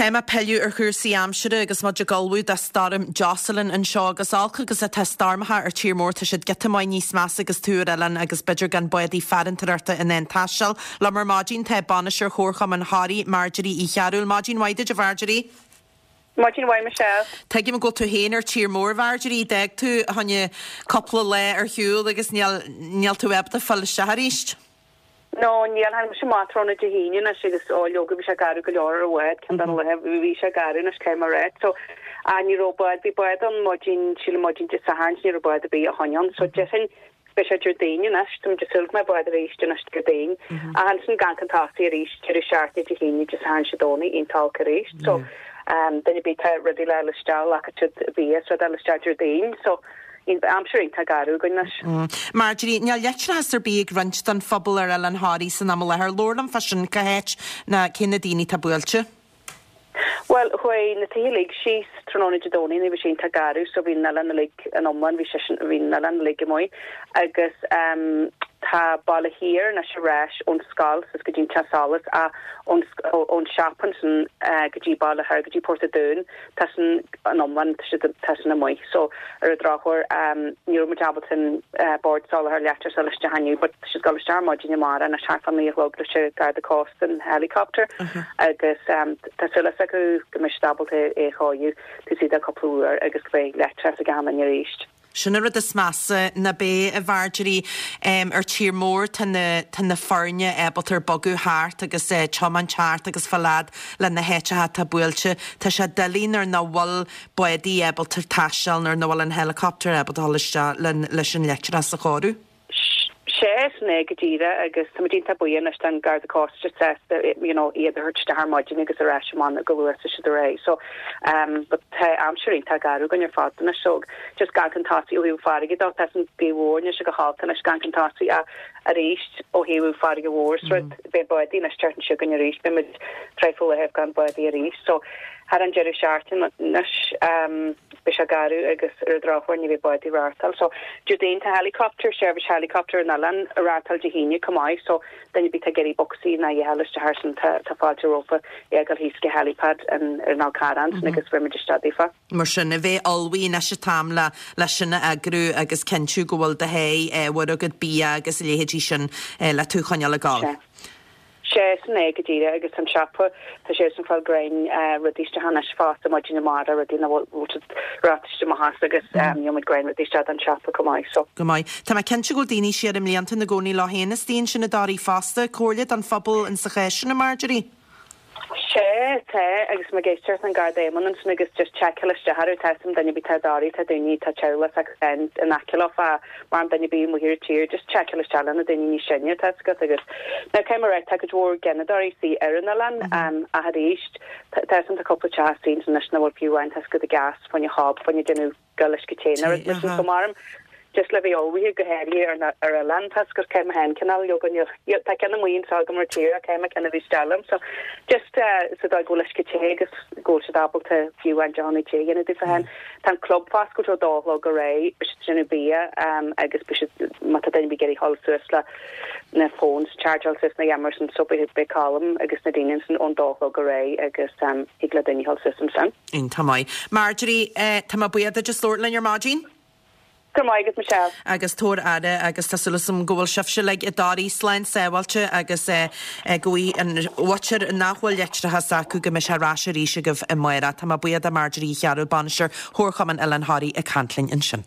Caithfidh mé pilleadh ar chúrsaí aimsire agus muid ag ullmhú do Stoirm Jocelyn anseo agus olc agus atá stoirmeacha ar tír mór tá siad giota maith níos measa agus tú ar oileán agus b'fhéidir gan bádaí farantóireachta in ann taisteal. Liom ar maidin tá Bainisteoir Chomharchumann Thoraí, Marjorie Uí Chearúil. Maidin mhaith duit a Mharjorie. Maidin mhaith Michelle. Tuigim go bhfuil tú féin ar tír mór Mharjorie, d'fhág tú fá choinne cúpla lá ar shiúl agus níl níl tú ábalta fáil isteach arís. No, níl, tháinig mise amach tráthnóna Dé hAoine anois agus ó leoga bhí sé garbh go leor ar an bhád, ceann de na laethe bhí sé garbh anois caithfidh mé a rá. So, ah ní raibh bád, bhí bád ann maidin, sílim maidin Dé Sathairn, ní raibh bád ar bith ó shoin ann. So déarfainn beidh sé Déardaoin anois, tá muid ag súil go mbeidh bád arís anois Déardaoin. Ach ansin ag amharc chun tosaigh arís, deireadh seachtaine Dé hAoine, Dé Sathairn, Dé Domhnaigh, iontach olc arís. So, duine ar bith tá rudaí le fháil isteach, glacfaidh siad bia is rud a fháil isteach Déardaoin. So, Aimsir iontach garbh againn anois. Marjorie, níl leictreachas ar bith ag roinnt den phobal ar Oileán Thoraí san am i láthair. Labhair liom fá sin, cá háit ná cé na daoine atá buailte? Bhuel, chuaigh na tithe uilig síos tráthnóna Dé Domhnaigh nuair a bhí sé iontach garbh so bhí an oileán uilig in iomlán, bhí sé sin, bhí an oileán uilig amuigh agus ehm tá Baile Thiar anois ar ais ón scoil suas go dtí an teach solais ach ón ón siopa ansin go dtí Baile Thoir go dtí Port a' Dúin tá sin in iomlán, tá siad, tá sin amuigh. So, ar an drochuair, ní raibh muid ábalta an Bord Soláthair Leictreachais a fháil isteach inniu, but tá siad ag dul isteach ar maidin amárach anois thart fá 9 a chlog leis an Garda Cósta an helicopter agus tá súil acu go mbeidh siad ábalta é a chóiriú taobh istigh de cúpla uair agus go mbeidh leictreachas ag achan duine arís. Sin an rud is measa, ná beidh, a Mharjorie. Ar tír mór tá na, tá na foirne ábalta ar bogadh thart agus tiomáint thart agus fáil fhad le na háiteacha atá buailte. Tá sé doiligh nuair nach bhfuil bádaí ábalta taisteal, nuair nach bhfuil an helicopter ábalta dhul isteach leis an leictreachas a chóiriú. Sea, sin é go díreach agus tá muid iontach buíoch anois don Garda Cósta just sásta you know iad a thabhairt isteach ar maidin agus ar ais amach go luath is siad ar aghaidh. So um but tá aimsir iontach garbh againn ar fad anois so just ag amharc chun tosaigh ó thaobh farraige dó tá an gaoth mhór anois go holc anois ag amharc chun tosaigh ach arís ó thaobh farraige mhór is rud beidh bádaí anois teacht anseo againn arís beidh muid traidhfil laethe gan bádaí arís so thar an deireadh seachtaine anois um beidh sé garbh agus ar an drochuair ní bheidh bádaí ag reáchtáil so Déardaoin tá helicopter, seirbhís helicopter an oileáin ag reáchtáil Dé hAoine chomh maith so duine ar bith atá ag iarraidh bocsaí ná a dhath a fháil isteach air sin tá tá fáilte rompu é a ghoil thíos go helipad an ar an Fhál Carrach ansin agus bheidh muid isteach daofa. Mar sin, a bheith ullmhaithe anois an t-am le le sin a eagrú agus cinntiú go bhfuil do sháith ábhair agat, bia agus a leithéidí sin le tú a choinneáil ag gabháil. Sea. Sea, sin é go díreach agus an siopa, tá siadsan ag fáil greim rudaí isteach anois fosta maidin amárach, rudaí nach bhfuil siad ráite amach as agus gheobhaidh muid greim rudaí isteach don siopa chomh maith so. Go maith. Tá mé cinnte go bhfuil daoine siar i mblianta ina gcónaí leo féin istigh ansin i dToraigh fosta. Comhairle don phobal in sa chás sin, a Marjorie? Sea, tá, agus mé ag éisteacht an Garda Éamonn ansin agus just seiceáil isteach orthu, tá 'fhios a'm duine ar bith atá i dToraigh, tá daoine, tá teaghlach s'acu féin in aice leo fá mar duine ar bith amuigh ar an tír, just seiceáil isteach le na daoine níos sine, tá 'fhios agat agus now caithfidh mé a rá, tá cuid mhór gineadóirí istigh ar an oileán, ach arís, tá 'fhios a'm tá cúpla teach istigh ansin anois nach bhfuil fiú amháin, tá 'fhios agat gas fá choinne hob, fá choinne déanamh go uisce te nó rud mar sin so maram just le bheith ullmhaithe go háirithe ar na ar oileán tá 'fhios agat caithfidh mé féin cineál leoga níl tá ceann amuigh anseo agam ar tír ach caithfidh mé ceann a bheith isteach liom so just sa dóigh go bhfuil uisce te agus go bhfuil siad ábalta fiú amháin deochanna te a dhéanamh daofa féin. Tá an club foscailte ó dó a chlog ar aghaidh, beidh siad ag déanamh bia agus beidh siad má tá duine ar bith ag iarraidh dhul suas le na phones chargeáil suas na dhéanamh sin so beidh beidh Colm agus na daoine ansin ón dó a chlog ar aghaidh agus thig le daoine dhul suas ansin. Iontach maith. Marjorie, tá mé buíoch duit as labhairt linn ar maidin. Go raibh maith agat, Michelle. Agus tabhair aire agus tá súil agam go bhfuil sibhse uilig i dToraigh slán sábháilte agus go bhfaighidh an mhuintir nach bhfuil leictreachas acu go mbeidh sé ar ais arís agaibh amárach. Tá mé buíoch de Marjorie Uí Chearúil, Bainisteoir Chomharchumann Oileán Thoraí ag caint linn ansin.